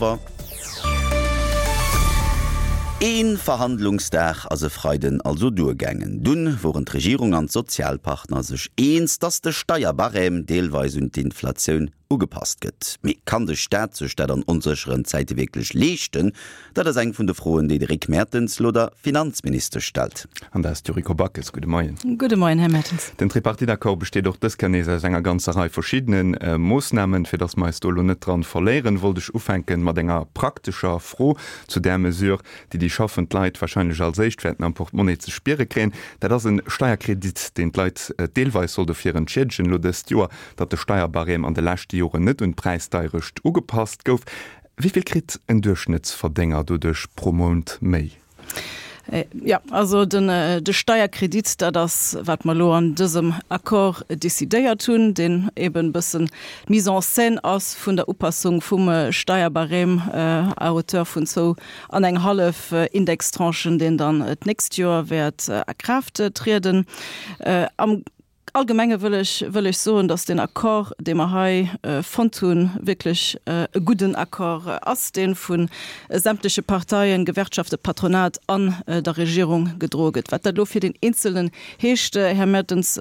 Polver. Ee Verhandlungsdag ass e Freiden also duergaangen. Dunn woren d'Regierung an d'Sozialpartner sech eens, datt de Steierbarème deelweis un d'Inflatioun ugepasst gëtt. Mee kann de Staat sech dat an onsécheren Zäite wierklech leeschten? Dat ass eng vun de Froen, déi de Rick Mertens lo der Finanzministesch stellt. An dat ass d'Yuriko Backes. Gudde Moien. Gudde Moien, Här Mertens. Den Tripartite-Accord besteet och dës Kéier nees aus enger ganzer Rei verschiddene Moossnamen. Fir datt mer eis do elo net dran verléieren, wollt ech ufänken mat enger praktescher Fro zu där Mesure, déi déi schaffend Leit wahrscheinlech als éischt wäerten am Portemonnaie ze spiere kréien. Dat ass e Steierkredit, deen d'Leit deelweis soll dofir entschiedegen, elo dëst Joer, datt de Steierbarème an de leschte Joren net un d'Präisdeierecht ugepasst gouf. Wéi vill kritt en Duerchschnëttsverdénger doduerch pro Mount méi? Jo, also den de Steierkredit, dat ass wat mer elo an dësem Accord decidéiert hunn, deen eben e bëssen d'Mise en scène ass vun der Upassung vum Steierbarème à hauteur vun zwou an eng hallef Indextranchen, deen dann d'nächst Joer wäert a Kraaft trieden. Am Allgemenge wëll ech, wëll ech soen, dass deen Accord, dee mer hei fonnt hunn, wierklech e gudden Accord ass, dee vu sämtleche Parteien, Gewerkschaften, Patronat an der Regierung gedroe gëtt. Wat dat elo fir deen Eenzelnen heescht, Här Mertens,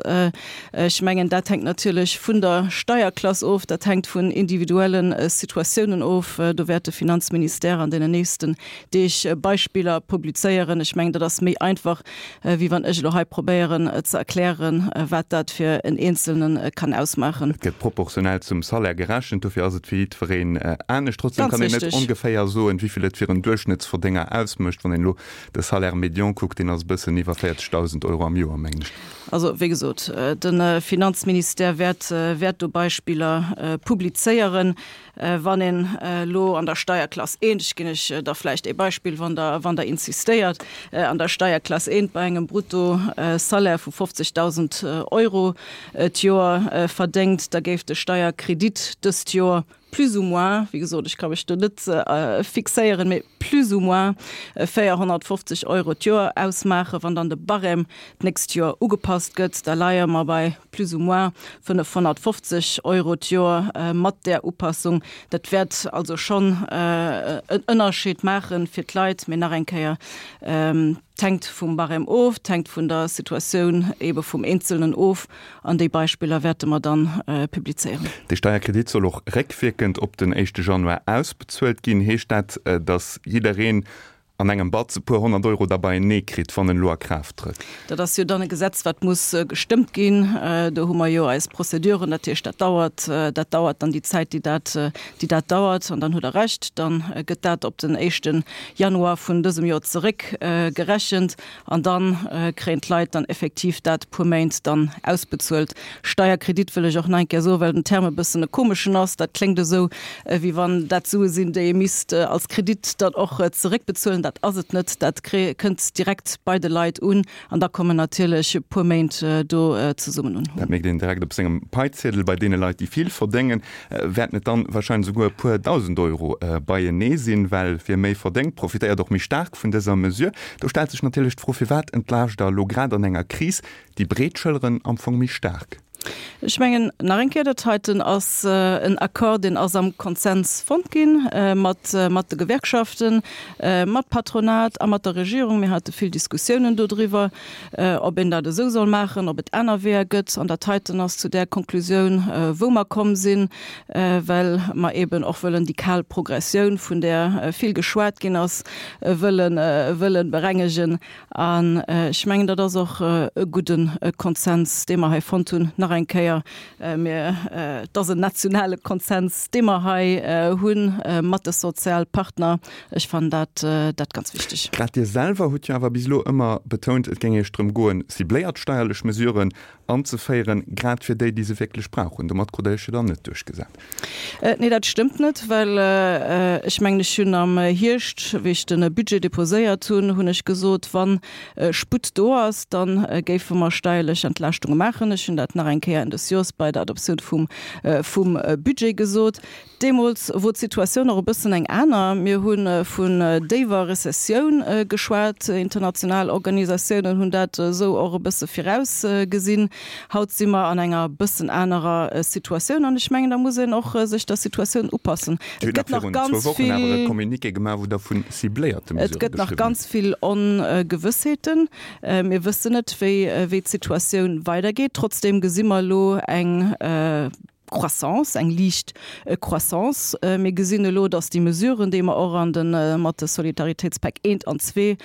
ech mengen, dat hänkt natierlech vun der Steierklass of, dat hänkt vun individuelle Situatiounen of. Do wäert de Finanzministère an deenen nächsten Deeg Beispiller publizéieren. Ech mengen, dat ass méi einfach, wéi wann ech elo hei probéieren ze erklären, wat dat fir en Eenzelne kann ausmaachen. Et gëtt proportionell zum Salaire gerechent, dofir ass et fir jiddwereen anescht. Trotzdem kann een net ongeféier soen, wéi vill et fir en Duerchschnëttsverdénger ausmécht. Wann een elo de Salaire médian kuckt, deen ass e bëssen iwwer 40.000 Euro am Joer, mengen ech. Also, wéi gesot, de Finanzministère wäert wäert do Beispiller publizéieren. Wann een elo an der Steierklass eent, ech ginn lech da vläicht ee Beispill, wann Der, wann Der insistéiert, an der Steierklass eent bei engem Bruttosalaire vu 50.000 Euro d'Joer verdéngt, da géif de Steierkredit dëst Joer plus ou moins, wéi gesot, ech ka mech do net fixéieren, mee plus ou moins 450 Euro d'Joer ausmaachen. Wann dann de Barème d'nächst Joer ugepasst gëtt, da leie mer bei plus ou moins 550 Euro d'Joer mat där Upassung. Dat wäert also schonn en Ënnerscheed maache fir d'Leit. Mee nach eng Kéier, Et hänkt vum Barème of, et hänkt vun der Situatioun eebe vum Eenzelnen of. An déi Beispiller wäerte mer dann publizéieren. Dee Steierkredit soll och réckwierkend op den éischte Januar ausbezuelt ginn. Heescht dat, datt jiddereen an engem Batz e puer 100 Euro da beienee kritt, wann en elo a Kraaft trëtt. Dat ass jo dann e Gesetz, wat muss gestëmmt ginn. Do hu mer jo eis Prozeduren. Dat heescht, dat dauert, dat dauert dann déi Zäit, déi dat, déi dat dauert. An dann hutt Der Recht, da gëtt dat op den éischte Januar vun dësem Joer zeréckgerechent. An da kréien d'Leit dann effektiv dat puer Méint dann ausbezuelt. Steierkredit wëll ech och nach eng Kéier soen, well den Term e bëssen e komeschen ass. Dat kléngt esou, wéi wann dat Sue sinn, déi ee misst als Kredit dann och zeréckbezuelen. Dat ass et net. Dat kënnt direkt bei de Leit un. An da kommen natierlech e puer Méint do zesummen un. Dat mierkt een direkt op sengem Paiziedel. Bei deene Leit, déi vill verdéngen, wäerten et dann wahrscheinlech esouguer e puer 1.000 Euro beienee sinn, well wie méi verdéngt, profitéiert och méi staark vun dëser Mesure. Do stellt sech natierlech d'Fro, Firwat entlaascht Der elo grad an enger Kris déi breet Schëlleren am Fong méi staark? Ech mengen, nach eng Kéier, dat heiten ass en Accord, deen ass am Konsens fonnt gi mat mat de Gewerkschaften, mat Patronat a mat der Regierung. Mir hate vill Diskussiounen dodriwwer, ob een dat esou soll maachen, ob et aner Weeër gëtt. An dat heiten ass zu där Konklusioun, wou mer komm sinn, well mer eeben och wëllen déi kal Progressioun, vun där vill geschwat ginn ass, wëllen wëllen berengegen. An ech mengen, dat ass och e gudde Konsens, dee mer hei fonnt hunn. Nach eng Kéier, mir, et ass en nationale Konsens, dee mer hei hu mat de Sozialpartner. Ech fannen dat, dat ganz wichteg. Grad Dir selwer hutt jo awer bis elo ëmmer betount, et géing Iech drëm goen, cibléiert steierlech Mesuren anzeféieren, grad fir déi, déi se wierklech brauchen. Domat krut Der Iech jo dann net duerchgesat. Nee, dat stëmmt net, well ech mengen, ech hunn am Hierscht, wéi ech de Budget deposéiert hunn, hunn ech gesot, wa Sputt do ass, da géife mer steierlech Entlaaschtunge maachen. Ech hunn dat nach eng. eng Kéier Enn des Joers bei der Adoptioun vum, vum Budget gesot. Deemools wor d'Situatioun och e bëssen eng aner. Mir hu vun déiwer Rezessioun geschwat. International Organisatiounen hunn dat esou och e bësse virausgesinn. Haut si mer an enger bëssen anerer Situatioun an ech mengen, da muss een och sech der Situatioun upassen. Et gëtt nach ganz vill, et gëtt nach ganz vill Ongewëssheeten. Mir wëssen net, wéi, wéi d'Situatioun weidergeet. Trotzdeem gesi mer elo eng Croissance, eng liicht Croissance. Mir gesinn elo, datt déi Mesuren, déi mer och an de mat de Solidaritéitspäck eent an zwee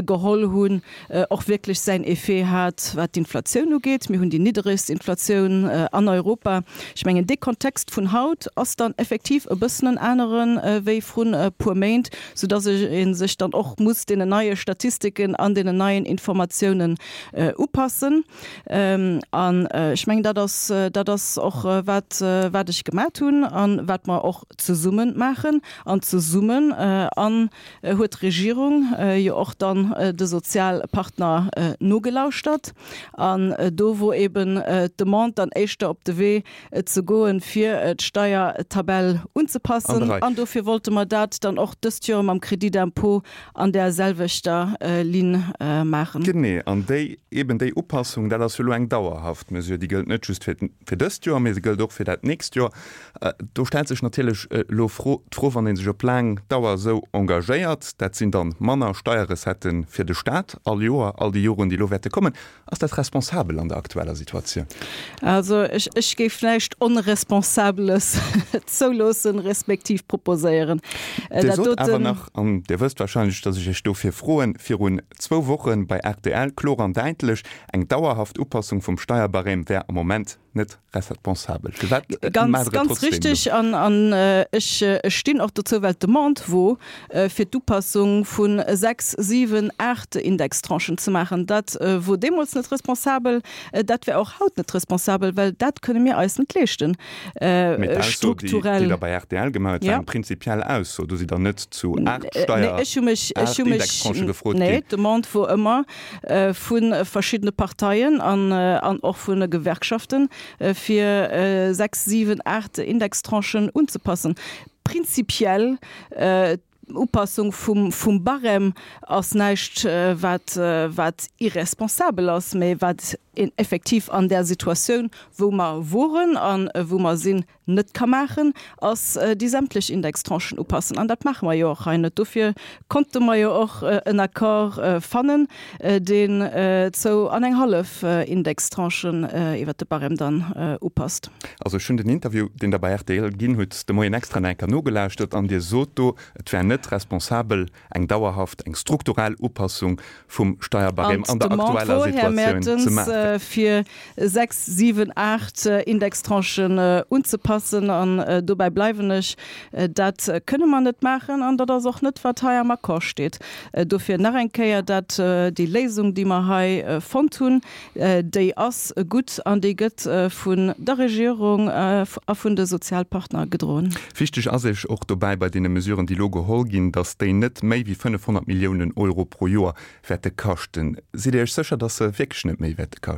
geholl hunn, och wierklech säin Effet hat, wat d'Inflatioun ugeet. Mir hunn déi nidderegst Inflatioun an Europa. Ech mengen, dee Kontext vun haut ass dann effektiv e bëssen en anere wéi vrun e puer Méint, soudatt ee sech dann och muss deenen neie Statistiken an deenen neien Informatiounen upassen. An ech mengen, dat ass, dat ass och, wat, wat ech gemat hunn a wat mer och zesumme maachen. An zesummen an huet d'Regierung jo och dann de Sozialpartner nogelauschtert. An do wor eben d'Demande dann éischter op de Wee ze goen, fir d'Steiertabell unzepassen. An dofir wollte mer dat dann och dëst Joer mam Crédit d'impôt an där selwechter Linn maachen. Genee, an déi, eben déi Upassung, dat ass jo elo eng dauerhaft Mesure, déi gëllt net just fir, fir dëst Joer, mee se gëllt och fir dat nächst Joer. Do stellt sech natierlech elo d'Fro, wann ee sech op laang Dauer esou engagéiert, dat sinn dann manner Steierrecetten fir de Staat all Joer, all déi Joren, déi elo wäerte kommen, Ass dat responsabel an der aktueller Situatioun? Also ech, ech géif näischt Onresponsabeles zouloossen, respektiv proposéieren. Dir sot awer nach, an Dir wësst wahrscheinlech, datt ech Iech dofir froen, virun zwou Woche bei rtl kloer an däitlech, eng dauerhaft Upassung vum Steierbarème wär am Moment net responsabel. Firwat Ganz, maacht Der et ganz trotzdem richtig. elo? An, an ech, ech stinn och dozou, well d'Demande wor, fir d'Upassung vu sechs, siwen, aacht Indextranchen ze maachen. Dat wor deemools net responsabel, dat wär och haut net responsabel, well dat kënne mir eis net leeschten, Mee d'Ausso, déi, déi strukturell. Der bei rtl gemaach hutt, war eng prinzipiell Ausso. Do sidd Der net zu aacht Steier, Nee, ech hu mech, ech aacht hu mech, Indextranchë gefrot nee, ginn. d'Demande wor ëmmer, vu verschiddene Parteien an och vun de Gewerkschaften, fir 6, 7, 8 Indextranchen unzepassen. Prinzipiell, d'Upassung vum Barème ass näischt, wat irresponsabel ass, mä wat een effektiv an där Situatioun, wou mer woren a wou mer sinn, net ka maachen, ass déi sämtlech Indextranchen upassen. An dat maache mer jo och hei net. Dofir konnte mer jo och en Accord fannen, deen zou an eng hallef Indextranchen iwwert de Barème dann upasst. Also ech hunn den Interview, deen Der bei rtl ginn hutt, de Moien extra nach eng Kéier nogelauschtert an Dir sot do, et wär net responsabel, eng dauerhaft, eng strukturell Upassung vum Steierbarème an der aktueller Situatioun ze maachen. Fir 6, 7, 8 Indextranchen unzepassen, an dobäi bleiwen ech, dat kënne mer net maachen an dat ass och net, wat hei am Accord steet. Dofir nach eng Kéier, dat déi Léisung, déi mer hei fonnt hunn, Déi ass gutt an déi gëtt vun der Regierung a vun de Sozialpartner gedroen. Wichteg ass Iech och dobäi bei deene Mesuren, déi elo geholl ginn, datt déi net méi wéi 500 Milliounen Euro pro Joer wäerte kaschten. Sidd Dir Iech sécher, datt se wierklech net méi wäerte kaschten?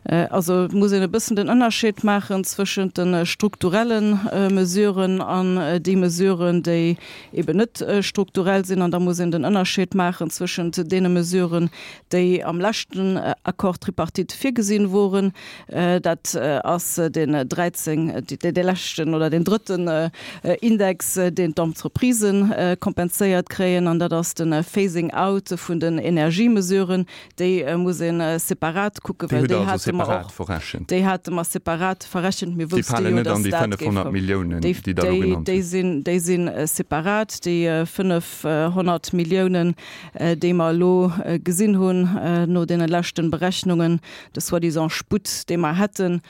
Also et muss een e bëssen den Ënnerscheed maachen zwëschent de strukturelle Mesuren an déi Mesuren, déi eben net strukturell sinn. An da muss een den Ënnerscheed maachen zwëschent deene Mesuren, déi am leschten Accord tripartite virgesinn woren, dat ass deen 13, dee leschten oder deen drëtten Index, deen d'Entreprisen kompenséiert kréien, an dat ass de Phasing out vun den Energiemesuren. Déi muss ee separat kucken, well déi hate mer och, déi hate mer separat verrechent. Mir wousste jo, dass dat géif kommen. Déi sinn, déi si separat, déi 500 Milliounen. déi mer elo gesinn hunn no deene leschten Berechnungen, de soi-disant Sputt, dee mer hätten,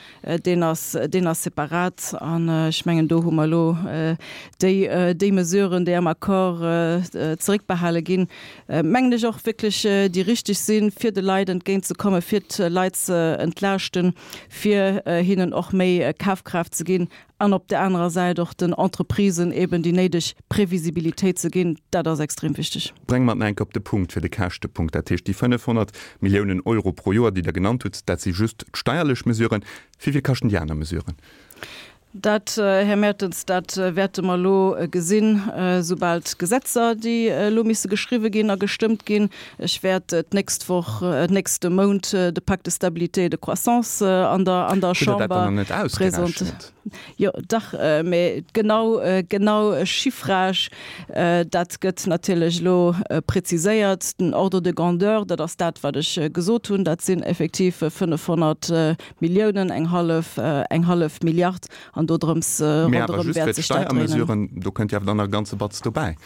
deen ass, deen ass separat. An ech mengen, do hu mer elo déi, déi Mesuren, déi am. Accord zeréckbehale ginn, mengen ech och wierklech déi richteg sinn, fir de Leit entgéintzekommen, fir d'Leit ze entlaaschten, fir hinnen och méi Kafkraaft ze ginn an op där anerer Säit och den Entreprisen eben déi néideg Previsibilitéit ze ginn. Dat ass extrem wichteg. Brénge mer et nach eng Kéier op de Punkt fir de Käschtepunkt. Dat heescht, déi 500 Milliounen Euro pro Joer, déi Der genannt hutt, dat si just d'steierlech Mesuren. Wéi vill kaschten déi aner Mesuren? Dat, Här Mertens, dat wäerte mer elo gesinn, soubal d'Gesetzer, déi elo misse geschriwwe ginn a gestëmmt ginn. Ech wäert d'nächst Woch, nächste Mount de Pacte de stabilité et de croissance an der, an der Hutt Der dat dann Chamber nach net ausgerechent? Jo, dach, mä genau, genau Chiffrage, dat gëtt natierlech elo preziséiert. Den Ordre de grandeur, dat ass dat, wat ech gesot hunn, dat sinn effektiv 500 Milliounen, eng hallef, eng hallef Milliard, an dodrëms, Mee awer ronderëm just fir wäert sech dat dréinen. d'Steiermesuren, do kënnt jo awer dann nach e ganze Batz dobäi.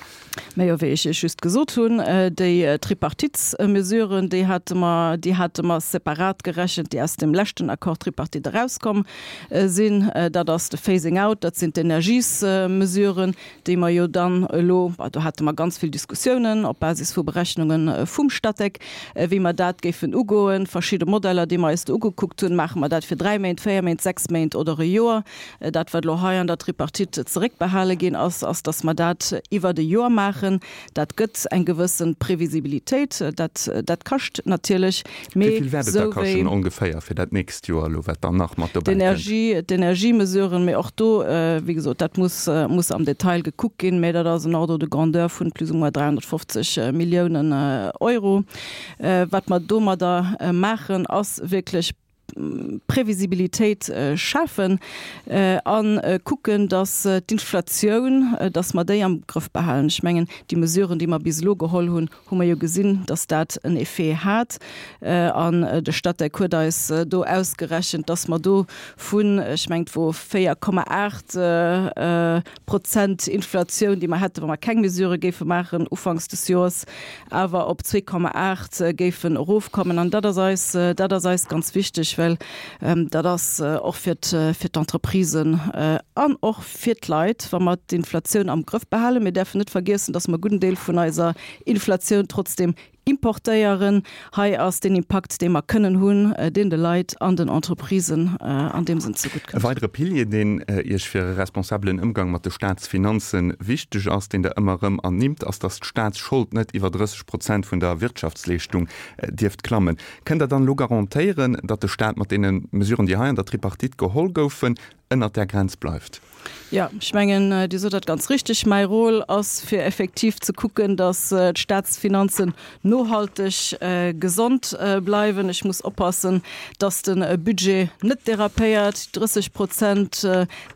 Mä jo, wéi ech Iech just gesot hunn, déi Tripartitesmesuren, déi hate mer, déi hate mer separat gerechent, déi aus dem leschten Accord tripartite erauskomm sinn. Dat ass de Phasing out, dat sinn d'Energiesmesuren, déi mer jo dann elo, do hate mer ganz vill Diskussiounen op Basis vu Berechnunge vum Statec, wéi mer dat géifen ugoen, verschidde Modeller, déi mer eis do ugekuckt hunn, maache mer dat fir dräi Méint, véier Méint, sechs Méint oder e Joer. Dat, wat elo hei an der Tripartite zeréckbehale ginn ass, ass, datt mer dat iwwert e Joer maachen. Dat gëtt eng gewësse Previsibilitéit. Dat, dat kascht natierlech, mee Wéi vill wäert et da esou wéi. kaschten ongeféier fir dat nächst Joer elo, wat dann nach mat dobäi kënnt? D'Energie, d'Energiemesuren, mee och do, wéi gesot, dat muss, muss am Detail gekuckt ginn, mee dat ass en Ordre de grandeur vun plus ou moins 350 Milliounen Euro. Wat mer domadder maachen, ass wierklech Previsibilitéit schafen a kucken, datt d'Inflatioun, datt mer déi am Grëff behalen. Ech mengen, déi Mesuren, déi mer bis elo geholl hunn, hu mer jo gesinn, datt dat en Effet hat. An de Statec huet eis do ausgerechent, datt mer do vun, ech mengen, et wor 4,8 Prozent Inflatioun, déi mer hätten, wa mer keng Mesurë géife maachen ufanks des Joers, awer op 2,8 géifen erofkommen. An dat ass eis, dat ass eis ganz wichteg, well dat ass och fir fir d'Entreprisen an och fir d'Leit, wa mer d'Inflatioun am Grëff behalen. Mir däerfen net vergiessen, dass mer e gudden Deel vun eiser Inflatioun trotzdem Importéieren. Hei ass deen Impakt, dee mer kënnen hunn, deen de Leit an den Entreprisen an deem Sënn zegutt E kënnt. weidere Pilier, deen Iech fir e responsabelen Ëmgang mat de Staatsfinanze wichteg ass, deen Der ëmmer erëm ernimmt, ass, datt d'Staatsschold net iwwer 30 Prozent vun der Wirtschaftsleeschtung dierft klammen. Kënnt Der dann elo garantéieren, datt de Staat mat deene Mesuren, déi hei an der Tripartite geholl goufen, ënnert där Grenz bleift? Jo, ech mengen, Dir sot dat ganz richtig. Mäi Rôle ass, fir effektiv ze kucken, datt d'Staatsfinanzen nohalteg gesond bleiwen. Ech muss oppassen, datt de Budget net dérapéiert. 30 Prozent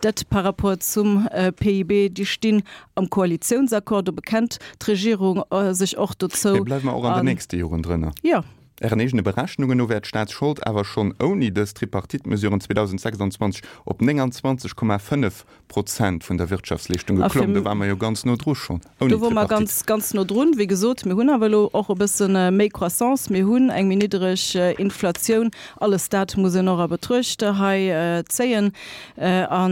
Dette par rapport zum PIB, déi stinn am Koalitiounsaccord. Do bekennt d'Regierung sech och dozou. Mee bleiwe mer och an den nächste Joren drënner? Jo. Ären eegene Berechnungen no wär d'Staatsschold awer schonn ouni dës Tripartite-Mesuren 2026 op 29,5 Prozent vun der Wirtschaftsleeschtung geklomm. Do ware mer jo ganz no dru schonn ouni Do wore mer Tripartite. ganz, ganz no drun. Wéi gesot, mir hunn awer elo och e bësse méi Croissance, mir hunn eng méi niddereg Inflatioun. Alles dat muss een och a Betruecht hei zéien. A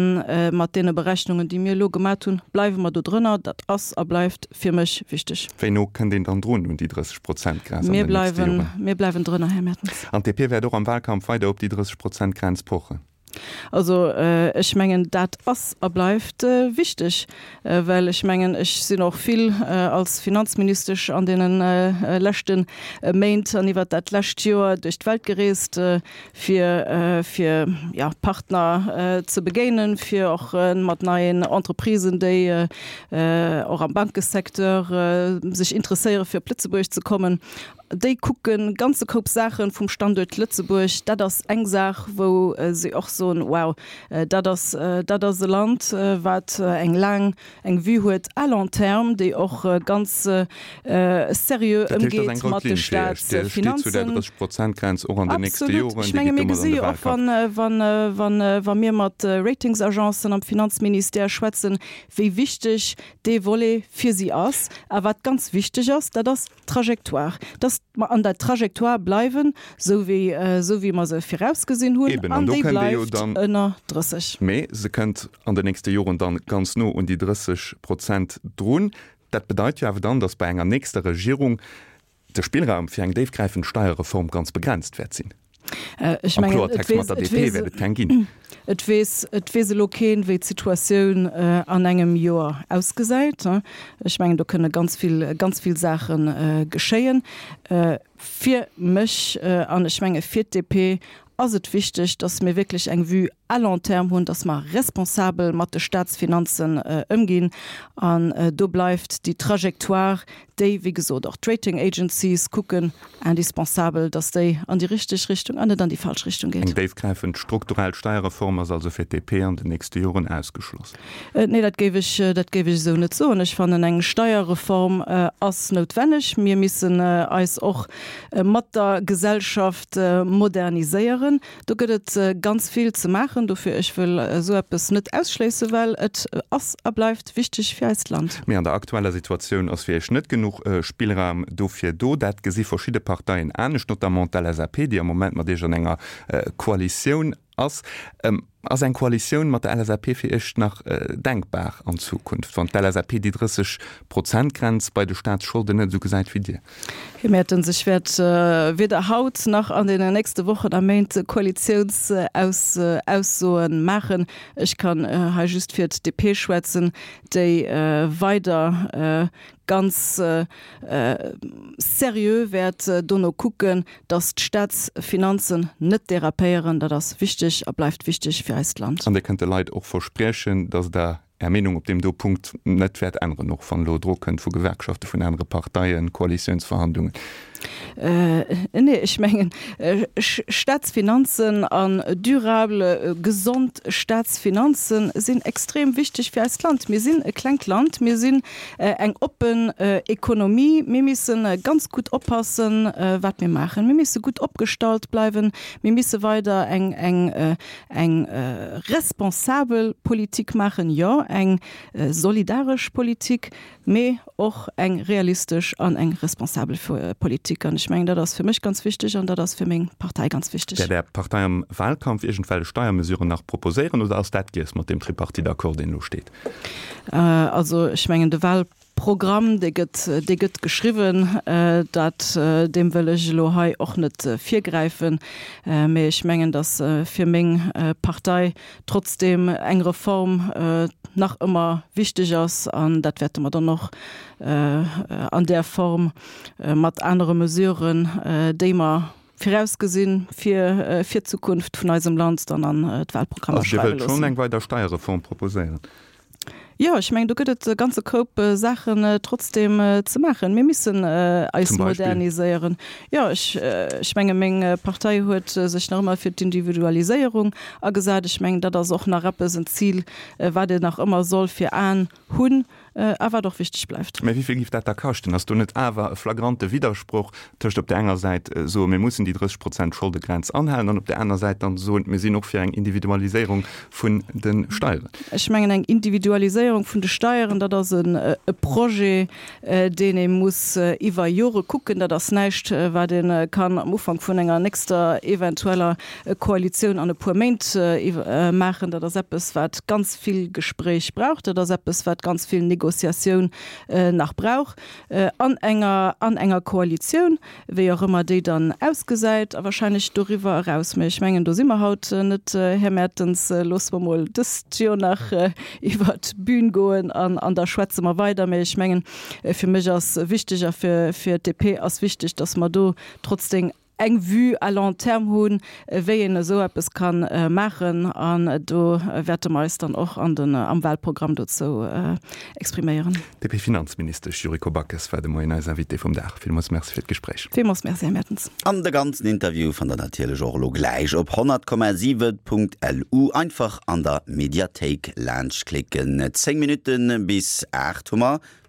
mat deene Berechnungen, déi mir elo gemat hunn, bleiwe mer do drënner. Dat ass a bleift fir mech wichteg. Wéi no kënnt een dann drun un déi 30 Prozent Grenz an den nächste Joren? Mir bleiwen drënner, Här Mertens. An d'DP wäert och am Wahlkampf weider op déi 30 Prozent Grenz pochen? Also ech mengen, dat ass a bleift wichteg, well ech mengen, ech sinn och vill als Finanzministesch an deene leschte Méint an iwwert dat lescht Joer duerch d'Welt gereest, fir fir ja Partner ze begéinen, fir och mat neien Entreprisen, déi och am Bankesecteur sech interesséiere fir op Lëtzebuerg ze kommen. Déi kucke ganze Koup Saache vum Standuert Lëtzebuerg. Dat ass eng Saach, wou si och soen, wow, dat ass dat ass e Land, wat eng laang eng Vue huet à long terme, déi och ganz seriö ëmgeet mat de Staatsfinanzen. Absolut. Ech menge mir gesi jo och, wa mir mat Ratingsagencen am Finanzministère schwätzen, wéi wichteg dee Volet fir si ass. A wat ganz wichteg ass, dat ass d'Trajectoire, dass mer an der Trajectoire bleiwen, esou wéi, esou wéi mer se virausgesinn hunn, an déi bleift ënner 30. Mee se kënnt an den nächste Joren dann ganz no un déi 30 Prozent drun. Dat bedeit jo awer dann, datt bei enger nächster Regierung de Spillraum fir eng déifgräifend Steierreform ganz begrenzt wäert sinn. Ech mengen, et Kloertext, mat der DP wäert et keng ginn. Et weess, et weess elo keen, wéi d'Situatioun an engem Joer ausgesäit. Ech mengen, do kënne ganz vill, ganz vill Saache geschéien. Fir mech an ech menge fir d'DP ass et wichteg, dass mir wierklech eng Vue à long terme hunn, dass mer responsabel mat de Statsfinanzen ëmginn. An do bleift déi Trajectoire, déi, wéi gesot, och d'Rating Agencies kucken, indispensabel, dass déi an déi richteg Richtung an net an déi falsch Richtung geet. Eng déifgräifend strukturell Steierreform ass also fir d'DP an den nächste Joren ausgeschloss? Nee, dat géif ech, dat géif ech esou net soen. Ech fannen, eng Steierreform ass noutwenneg. Mir missen eis och mat der Gesellschaft moderniséieren. Do gëtt et ganz vill ze maachen. Dofir, ech wëll esou eppes net ausschléissen, well et ass a bleift wichteg fir eist Land. Mee an der aktueller Situatioun ass fir Iech net genuch Spillraum dofir do. Dat gesi verschidde Parteien anescht, notamment d'LSAP, déi am Moment mat Iech an enger Koalitioun ass. Ass eng Koalitioun mat der LSAP fir Iech nach denkbar an Zukunft, wann d'LSAP déi 30 Prozent Grenz bei de Staatsscholden net esou gesäit wéi Dir? Här Mertens, ech wäert weder haut nach an deenen nächste Wochen a Méint Koalitiounsaussoe maachen. Ech kann hei just fir d'DP schwätzen, déi weider ganz seriö wäert dono kucken, dass d'Staatsfinanzen net derapéieren. Dat ass wichteg a bleift wichteg fir eist Land. An Dir kënnt de Leit och verspriechen, dass Der Är Meenung op deem do Punkt net wäert änneren, och wann elo Drock kënnt vu Gewerkschaften, vun anere Parteien, Koalitiounsverhandlungen? Nee, ech mengen, Staatsfinanzen an durabel, gesond Staatsfinanze sinn extrem wichteg fir eist Land. Mir sinn e klengt Land, mir sinn eng oppen Ekonomie. Mir misse ganz gutt oppassen, wat mir maachen. Mir misse gutt opgestallt bleiwen. Mir misse weider eng, eng, eng responsabel Politik maachen, jo, eng solidaresch Politik. mee och eng realistesch an eng responsabel Politik. An ech mengen, dat ass fir mech ganz wichteg an dat ass fir meng Partei ganz wichteg. Wäert Är Partei am Wahlkampf iergendwellech Steiermesuren nach proposéieren oder ass dat giess mat deem Tripartite-Accord, deen elo steet? Also ech mengen, de Wahlprogramm, dee gëtt, dee gëtt geschriwwen. Dat, deem wëll ech elo hei och net virgräifen. Mee ech mengen, datt fir meng Partei Trotzdem eng Reform nach ëmmer wichteg ass, an dat wäerte mer dann och an där Form mat anere Mesuren, déi mer virausgesinn fir fir d'Zukunft vun eisem Land, dann an d'Wahlprogrammer schreiwe loossen. Also Dir wëllt schonn eng weider Steierreform proposéieren? Jo, ech mengen, do gëtt et e ganze Koup Saachen trotzdeem ze maachen. Mir missen eis moderniséieren. Jo, ech, ech menge meng Partei huet sech nach ëmmer fir d'Individualiséierung agesat. Ech mengen, dat ass och nach eppes, en Zil, wat een nach ëmmer soll fir Aen hunn a wat och wichteg bleift. Mä wéi vill géif dat da kaschten? Ass do net awer e flagrante Widdersproch tëscht op där enger Säit soen, mir mussen déi 30 Prozent Scholdegrenz anhalen, an op där aner Säit dann soen, mir sinn och fir eng Individualiséierung vun de Steieren? Ech mengen, eng Individualiséierung vun de Steieren, dat ass e Projet, deen ee muss iwwer Jore kucken. Dat ass näischt, wat ee kann am Ufank vun enger nächster eventueller Koalitioun an e puer Méint maachen. Dat ass eppes, wat ganz vill Gespréich brauch. Dat ass eppes, wat ganz vill Négociatioun nach brauch an enger, an enger Koalitioun. wéi och ëmmer déi dann ausgesäit, a wahrscheinlech doriwwer eraus. Mä ech mengen, do si mer haut net, Här Mertens. Loosse mer mol dëst Joer nach iwwert d'Bün goen an an da schwätze mer weider. Mä ech mengen, fir mech ass wichteg a fir fir d'DP ass wichteg, datt mer do trotzdem eng Vue à long terme hunn, wéi een esou eppes ka maachen. An do wäerte mer eis dann och an den am Wahlprogramm dozou expriméieren. D'DP-Finanzministesch Yuriko Backes war de Moien eis Invitée vum Dag. Villmools Merci fir d'Gespréich. Villmools Merci, Här Mertens. An de ganzen Interview fannt der natierlech och elo gläich op 100,7.lu. Einfach an der Mediathéik laanscht klicken. 10 Minutten bis 8 hu mer.